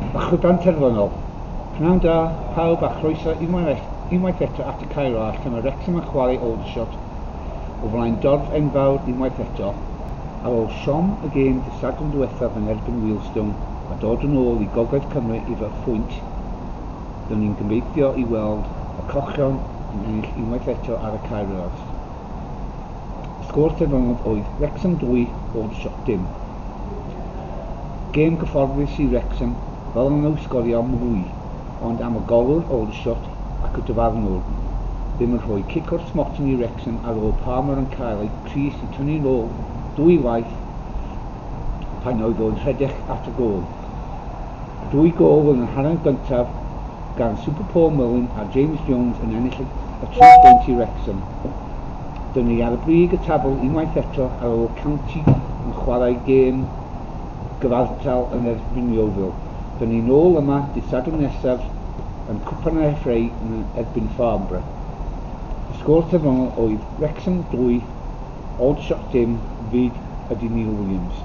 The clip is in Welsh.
Y chwiban terfynol. Pnawn da, pawb, a chroeso unwaith eto at y Cae Ras lle mae Wrexham yn chwarae Aldershot o flaen dorf enfawr unwaith eto. Ar ôl siom y gêm dydd Sadwrn diwethaf yn erbyn Wealdstone a dod yn ôl i Gogledd Cymru efo phwynt, byddwn ni'n gobeithio i weld y Cochion yn ennill unwaith eto ar y Cae Ras. Y sgôr terfynol oedd Wrexham 2, Aldershot dim. Gêm gyfforddus i Wrexham, fel nhw sgorio mwy, ond am y golwr Aldershot ac y dyfarnwr ddim yn rhoi cic o'r smotyn i Wrexham ar ôl Palmer yn cael ei crys i tynnu'n ôl dwy waith pan oedd o'n rhedeg at y gôl. Dwy gôl yn yr hanner gyntaf gan Super Paul Mullin a James Jones yn ennill y 3 bwynt i Wrexham. Dyn ni ar y brig y tabl unwaith eto ar ôl County yn chwarae gêm gyfartal yn erbyn Yeovil. Dyn ni nôl yma dydd Sadwrn nesaf yn Cwpan yr FA yn erbyn Farnborough. Y sgôr terfynol oedd Wrexham 2, Aldershot dim, fyd ydy Neil Williams.